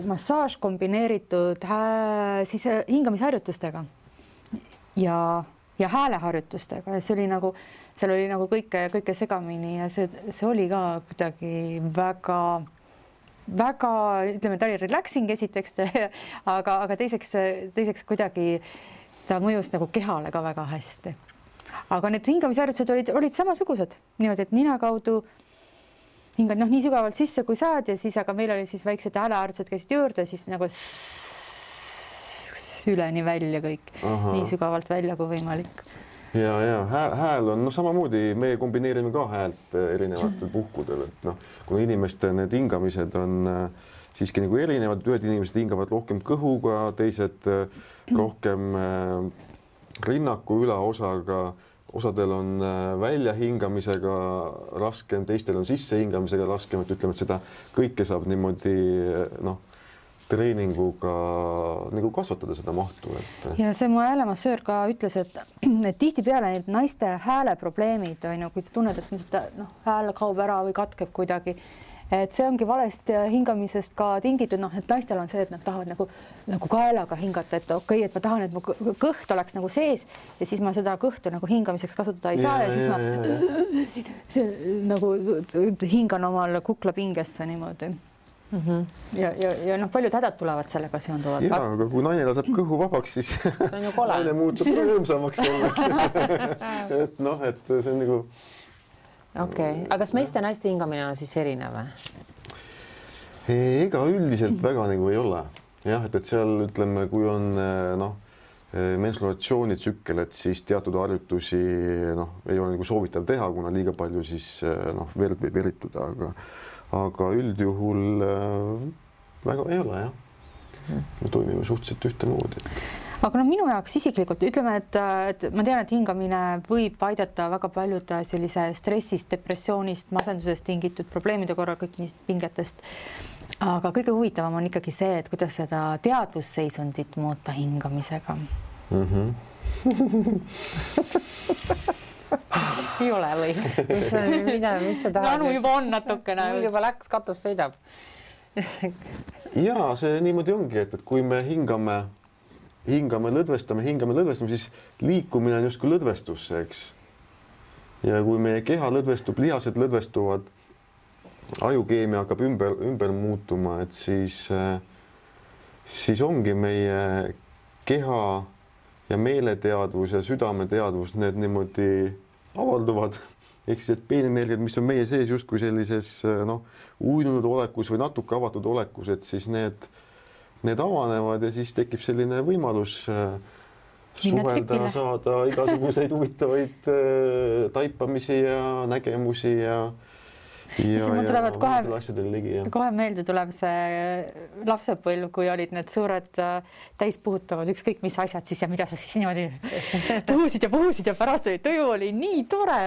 massaaž kombineeritud siis hingamisharjutustega ja hääleharjutustega. Ja see oli nagu, seal oli nagu kõike segamini ja see oli ka kuidagi väga, ütleme, ta oli relaxing esiteks, aga teiseks kuidagi ta mõjus nagu kehale ka väga hästi. Aga need hingamisharjutused olid samasugused, niimoodi, et nina kaudu hingad nii sügavalt sisse, kui saad ja siis, aga meil oli siis väiksed hääleharjutused käisid juurde, siis nagu üleni välja kõik, nii sügavalt välja kui võimalik. Ja hääl on samamoodi, me kombineerime ka häält erinevatel puhkudel, et kuna inimeste need hingamised on siiski nagu erinevad, ühed inimesed hingavad rohkem kõhuga, teised rohkem rinnaku ülaosaga, osadel on väljahingamisega raskem, teistel on sissehingamisega raskem, et ütleme, et seda kõike saab niimoodi treeninguga nagu kasvatada seda mahtu. Ja see mu häälemassöör ka ütles, et tihtipeale need naiste hääleprobleemid on ju, kui sa tunned, et hääl kaob ära või katkeb kuidagi, et see ongi valest hingamisest ka tingitud, et naistel on see, et nad tahavad nagu kaelaga hingata, et okei, et ma tahan, et mu kõht oleks nagu sees ja siis ma seda kõhtu nagu hingamiseks kasutada ei saa ja siis ma nagu hingan omal kuklapingesse niimoodi. Ja paljud hädad tulevad sellega seonduvad. Ja, aga kui naine laseb kõhu vabaks, siis naine muutub rõõmsamaks. Et see on nagu... Okei, aga kas meeste ja naiste hingamine on siis erinev? Ega üldiselt väga nagu ei ole. Jah, et seal ütleme, kui on menstruatsioonitsükkel, et siis teatud harjutusi ei ole nagu soovitav teha, kuna liiga palju siis verd võib erituda, aga üldjuhul väga ei ole, jah. Me toimime suhteliselt ühtemoodi. Aga minu jaoks isiklikult ütleme, et ma tean, et hingamine võib aidata väga paljude sellise stressist, depressioonist, masendusest tingitud probleemide korral, kõik pingetest. Aga kõige huvitavam on ikkagi see, et kuidas seda teadvusseisundit muuta hingamisega. Ei ole või? Mis sa tahad? Anu juba on natukene. Mul juba läks, katus sõidab. Ja see niimoodi ongi, et kui me hingame, lõdvestame, siis liikumine on justkui lõdvestusse, eks. Ja kui meie keha lõdvestub, lihased lõdvestuvad, ajukeemia hakkab ümber muutuma, et siis ongi meie keha ja meeleteadvus ja südameteadvus, need niimoodi avalduvad. Ehk siis, et peenenergiad, mis on meie sees justkui sellises uinunud olekus või natuke avatud olekus, et siis need avanevad ja siis tekib selline võimalus suhelda, saada igasuguseid huvitavaid taipamisi ja nägemusi ja tulevad kohe meelde tuleb see lapsepõlv, kui olid need suured täispuhutavad ükskõik mis asjad siis ja mida sa siis niimoodi puhusid ja pärast oli tuju, oli nii tore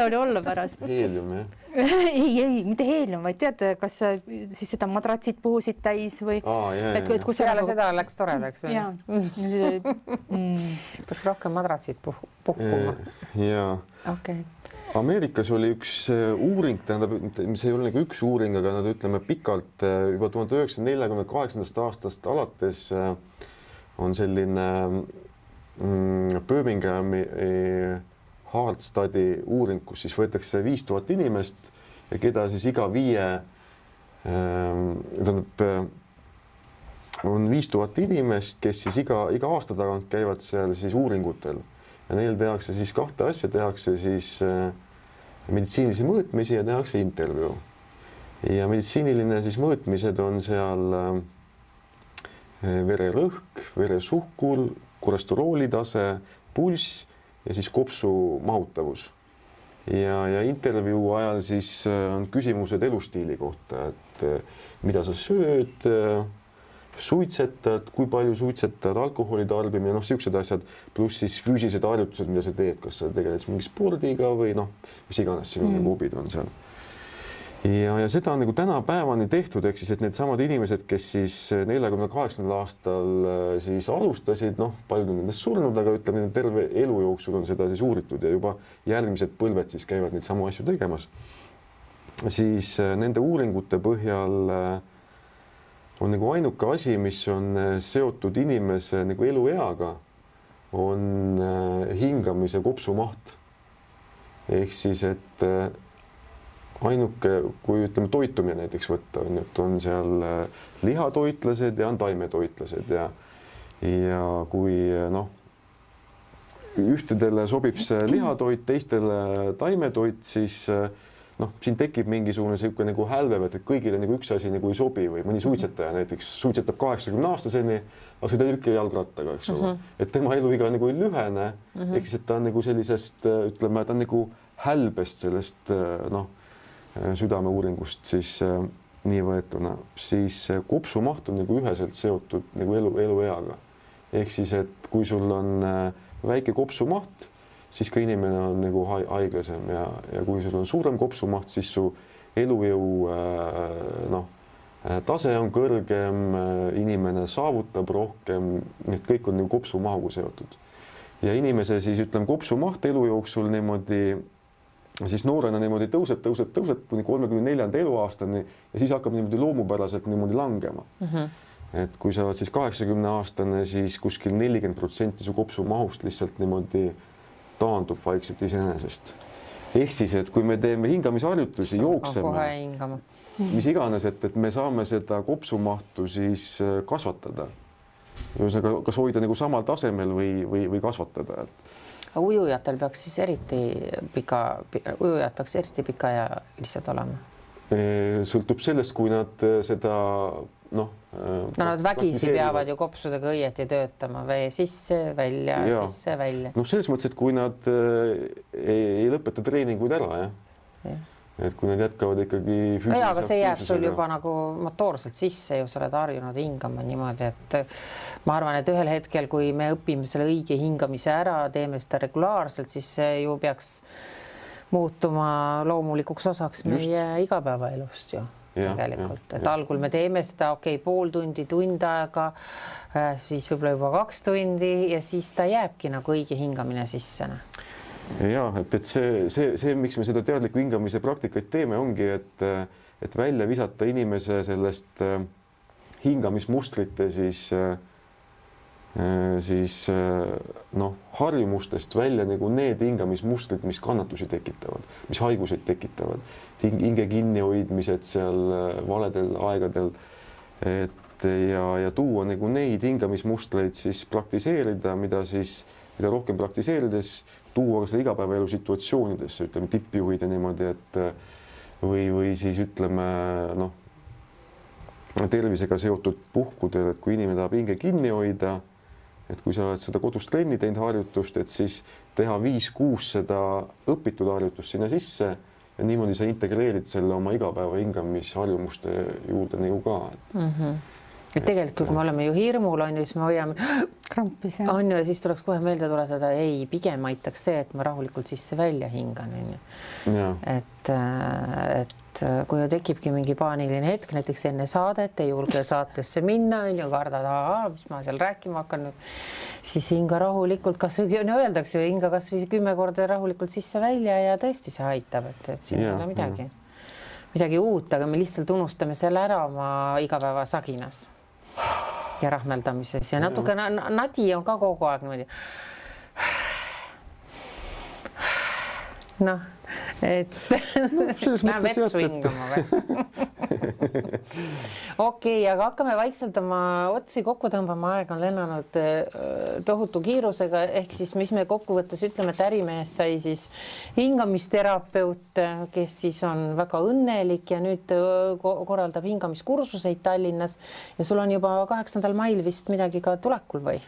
oli olla pärast. Heelium, jah? Ei, mitte heelium, vaid tead, kas siis seda madratsid puhusid täis või? Peale seda läks toredaks. Peaks rohkem madratsid puhkuma. Jaa. Okei. Ameerikas oli üks uuring, tähendab, mis ei ole nagu üks uuring, aga nad ütleme pikalt juba 1948. aastast alates on selline Birminghami Heart Study uuring, kus siis võetakse 5000 inimest ja keda siis iga 5, on 5000 inimest, kes siis iga aasta tagant käivad seal siis uuringutel ja neil tehakse siis 2 asja, tehakse siis meditsiinilisi mõõtmisi ja tehakse intervjuu. Ja meditsiiniline siis mõõtmised on seal vererõhk, veresuhkur, kolesterooli tase, pulss ja siis kopsu mahutavus. Ja intervjuu ajal siis on küsimused elustiili kohta, et mida sa sööd, suitsetad, kui palju suitsetad, alkoholi tarbimine, siuksed asjad, pluss siis füüsilised harjutused, mida sa teed, kas sa tegeled mingi spordiga või mis iganes sinu hobid on seal. Ja seda on nagu tänapäevani tehtud, ehk siis, et need samad inimesed, kes siis 48. aastal siis alustasid, paljud on nendest surnud, aga ütleme, terve elu jooksul on seda siis uuritud ja juba järgmised põlved siis käivad neid samu asju tegemas. Siis nende uuringute põhjal on nagu ainuke asi, mis on seotud inimese nagu elueaga, on hingamise kopsumaht. Ehk siis, et ainuke, kui ütleme toitumine näiteks võtta, on seal lihatoitlased ja on taimetoitlased ja kui ühtedele sobib see lihatoit, teistele taimetoit, siis siin tekib mingisugune selline nagu hälvev, et kõigile nagu üks asi nagu ei sobi või mõni suitsetaja näiteks suitsetab 80-aastaseni, aga see teeb ikka jalgrattaga, eks ole. Et tema eluiga nagu ei lühene, ehk siis, et ta on nagu sellisest, ütleme, ta on nagu hälbest sellest südameuuringust siis nii võetuna, siis kopsumaht on nagu üheselt seotud nagu elueaga. Ehk siis, et kui sul on väike kopsumaht, siis ka inimene on nagu haiglasem ja kui sul on suurem kopsumaht, siis su elujõu tase on kõrgem, inimene saavutab rohkem, need kõik on nagu kopsumahuga seotud. Ja inimese siis ütleme kopsumaht elu jooksul niimoodi, siis noorena niimoodi tõuseb kuni 34. eluaastani ja siis hakkab niimoodi loomupäraselt niimoodi langema. Et kui sa oled siis 80-aastane, siis kuskil 40% su kopsumahust lihtsalt niimoodi taandub vaikselt iseenesest. Ehk siis, et kui me teeme hingamisharjutusi, jookseme, mis iganes, et me saame seda kopsumahtu siis kasvatada. Kas hoida nagu samal tasemel või kasvatada. Ujujatel peaks siis eriti pika ja lihtsalt olema? Sõltub sellest, kui nad seda nad vägisi peavad ju kopsudega õieti töötama, vee sisse, välja, sisse, välja. Selles mõttes, et kui nad ei lõpeta treeninguid ära, et kui nad jätkavad ikkagi füüsilise aga see jääb sul juba nagu motoorselt sisse ju, sa oled harjunud hingama niimoodi, et ma arvan, et ühel hetkel, kui me õpime selle õige hingamise ära, teeme seda regulaarselt, siis see ju peaks muutuma loomulikuks osaks meie igapäevaelust ju. Tegelikult, et algul me teeme seda pool tundi, tund aega, siis võib-olla juba 2 tundi ja siis ta jääbki nagu õige hingamine sisse. Ja, et see, miks me seda teadliku hingamise praktikaid teeme, ongi, et välja visata inimese sellest hingamismustrite siis siis noh, harjumustest välja nagu need hingamismustrid, mis kannatusi tekitavad, mis haiguseid tekitavad, hinge kinnihoidmised seal valedel aegadel, et ja tuua nagu neid hingamismustreid siis praktiseerida, mida rohkem praktiseerides tuua ka seda igapäevaelu situatsioonidesse, ütleme tippjuhid ja niimoodi, et või siis ütleme noh, tervisega seotud puhkudel, et kui inimene tahab hinge kinni hoida, et kui sa oled seda kodus trenni teinud harjutust, et siis teha 5-6 seda õpitud harjutust sinna sisse ja niimoodi sa integreerid selle oma igapäeva hingamisharjumuste juurde nagu ka. Et tegelikult, kui me oleme ju hirmul, on ju, siis me hoiame krampis, on ju, ja siis tuleks kohe meelde tuletada, ei, pigem aitaks see, et ma rahulikult sisse välja hingan, on ju. Et kui tekibki mingi paaniline hetk, näiteks enne saadet, ei julge saatesse minna, on ju, kardad, mis ma seal rääkima hakkan nüüd, siis hinga rahulikult, kas või öeldakse ju hinga kas või 10 korda rahulikult sisse välja ja tõesti see aitab, et siin ei ole midagi uut, aga me lihtsalt unustame selle ära oma igapäeva saginas ja rahmeldamises ja natuke nadi on ka kogu aeg niimoodi. Noh, et läheb vetsu hingama või? Okei, aga hakkame vaikselt oma otsi kokku tõmbama, aeg on lennanud tohutu kiirusega, ehk siis mis me kokkuvõttes ütleme, et ärimees sai siis hingamisterapeut, kes siis on väga õnnelik ja nüüd korraldab hingamiskursuseid Tallinnas ja sul on juba 8. mail vist midagi ka tulekul või?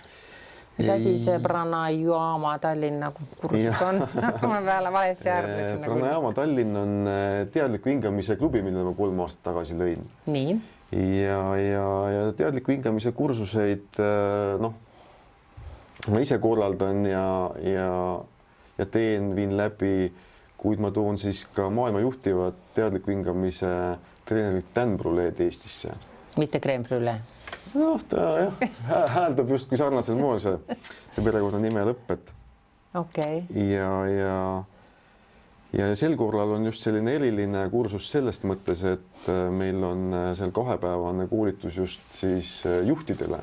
Mis asi see Pranayama Tallinna kursus on? Ma peale valesti arvasin. Pranayama Tallinn on teadliku hingamise klubi, mille ma 3 aastat tagasi lõin. Nii. Ja teadliku hingamise kursuseid, noh, ma ise korraldan ja viin läbi, kuid ma toon siis ka maailma juhtivad teadliku hingamise treenerit Dan Bruleed Eestisse. Mitte crème brûlée? Noh, ta hääldab just kui sarnasel moel see perekonna nime lõpp, et okei. Ja sel korral on just selline eriline kursus sellest mõttes, et meil on seal 2-päevane koolitus just siis juhtidele.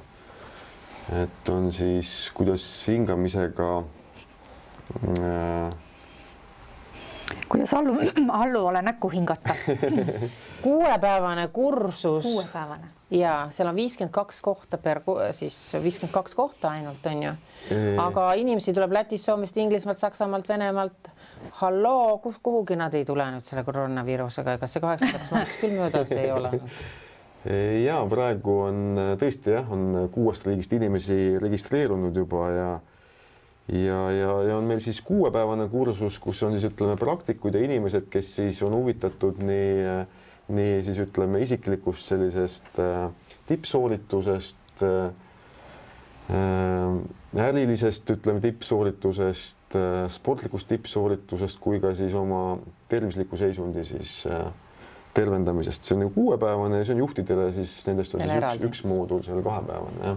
Et on siis, kuidas hingamisega kuidas alluvale näkku hingata. 6-päevane kursus. 6-päevane. Ja seal on 52 kohta siis 52 kohta ainult, on ju. Aga inimesi tuleb Lätist, Soomest, Inglismaalt, Saksamaalt, Venemaalt. Halloo, kuhugi nad ei tule nüüd selle koroonaviirusega, ega see 8. maaks küll möödas ei ole. Ja praegu on tõesti on 6 riigist inimesi registreerunud juba ja on meil siis 6-päevane kursus, kus on siis ütleme praktikud ja inimesed, kes siis on huvitatud nii siis ütleme isiklikust sellisest tippsooritusest, ärilisest ütleme tippsooritusest, sportlikust tippsooritusest kui ka siis oma tervisliku seisundi siis tervendamisest. See on 6-päevane ja see on juhtidele siis nendest on siis üks moodul seal 2-päevane.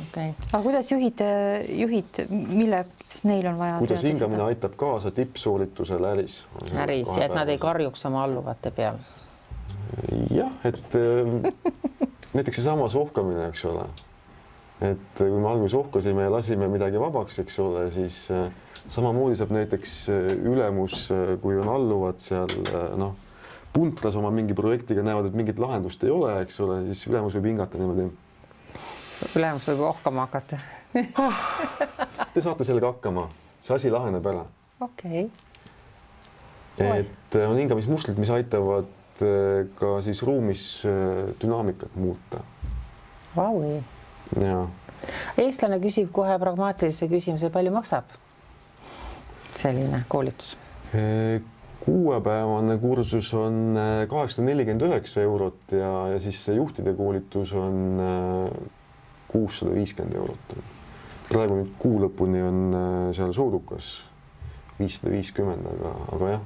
Okay. Aga kuidas juhid, milleks neil on vaja? Kuidas hingamine aitab kaasa tippsooritusele äris? Äris ja et nad ei karjuks oma alluvate peal. Jah, et näiteks see sama sohkamine, eks ole. Et kui me alguses sohkasime ja lasime midagi vabaks, eks ole, siis samamoodi saab näiteks ülemus, kui on alluvad seal, noh, puntras oma mingi projektiga näevad, et mingit lahendust ei ole, eks ole, siis ülemus võib hingata niimoodi. Ülemus võib ohkama hakata. Te saate sellega hakkama. See asi laheneb ära. Okei. Et on hingamismustrid, mis aitavad ka siis ruumis dünaamikat muuta. Vaui. Ja. Eestlane küsib kohe pragmaatilise küsimuse, palju maksab selline koolitus? 6-päevane kursus on 849 eurot ja siis see juhtide koolitus on 650 eurot. Praegu nüüd kuu lõpuni on seal soodukas 550, aga jah.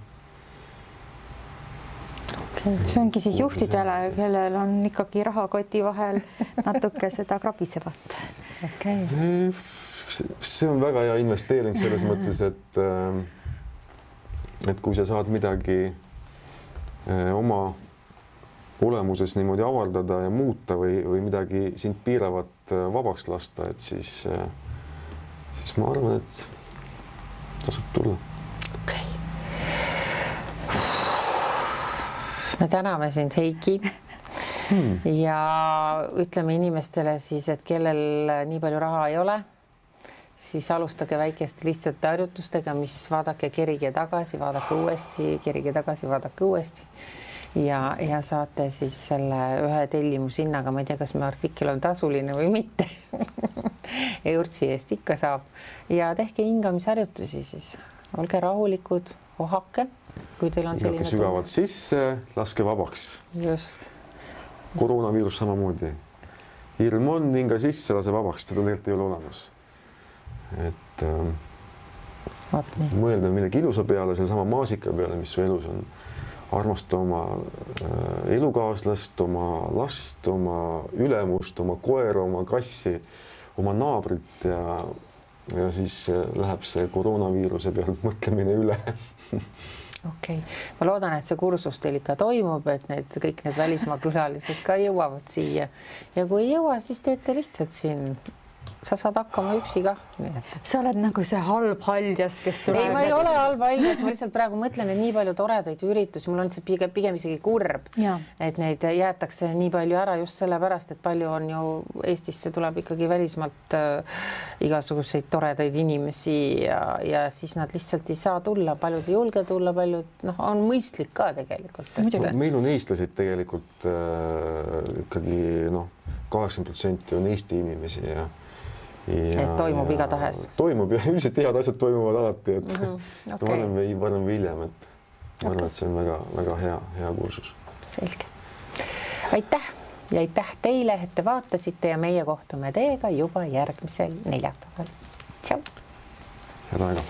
Okay. See ongi siis juhtidele, kellel on ikkagi rahakoti vahel natuke seda krabisevat. Okay. See on väga hea investeering selles mõttes, et kui sa saad midagi oma olemuses niimoodi avaldada ja muuta või midagi sind piiravat vabaks lasta, et siis ma arvan, et tasub tulla. Okay. Me täname sind, Heiki. Ja ütleme inimestele siis, et kellel nii palju raha ei ole, siis alustage väikeste lihtsate harjutustega, mis vaadake, kerige tagasi, vaadake uuesti, kerige tagasi, vaadake uuesti. Ja saate siis selle ühe tellimushinnaga, ma ei tea, kas me artikkel on tasuline või mitte. Eurtsi eest ikka saab. Ja tehke hingamisharjutusi siis. Olge rahulikud, ohake. Kui teil on selline sügavalt sisse, laske vabaks. Just. Koroonaviirus samamoodi. Hirm on, hinga sisse, lase vabaks, teda tegelikult ei ole olemas. Et mõelda millegi ilusa peale, selle sama maasika peale, mis su elus on. Armasta oma elukaaslast, oma last, oma ülemust, oma koera, oma kassi, oma naabrit ja siis läheb see koroonaviiruse pealt mõtlemine üle. Okei. Ma loodan, et see kursus teil ikka toimub, et kõik need välismaa külalised ka jõuavad siia. Ja kui ei jõua, siis teete lihtsalt siin. Sa saad hakkama üksi ka. Sa oled nagu see halb haljas, kes tuleb. Ei, ma ei ole halb haljas. Ma lihtsalt praegu mõtlen, et nii palju toredaid üritusi. Mul on lihtsalt pigem isegi kurb, et neid jäetakse nii palju ära just sellepärast, et palju on ju Eestisse tuleb ikkagi välismaalt igasuguseid toredaid inimesi ja siis nad lihtsalt ei saa tulla. Paljud ei julge tulla, paljud on mõistlik ka tegelikult. Meil on eestlased tegelikult ikkagi 80% on Eesti inimesi ja et toimub igatahes. Toimub ja üldiselt head asjad toimuvad alati, et varem või hiljem, et ma arvan, et see on väga hea kursus. Selge. Aitäh ja aitäh teile, et te vaatasite ja meie kohtume teiega juba järgmisel neljapäeval. Tšau. Head aega.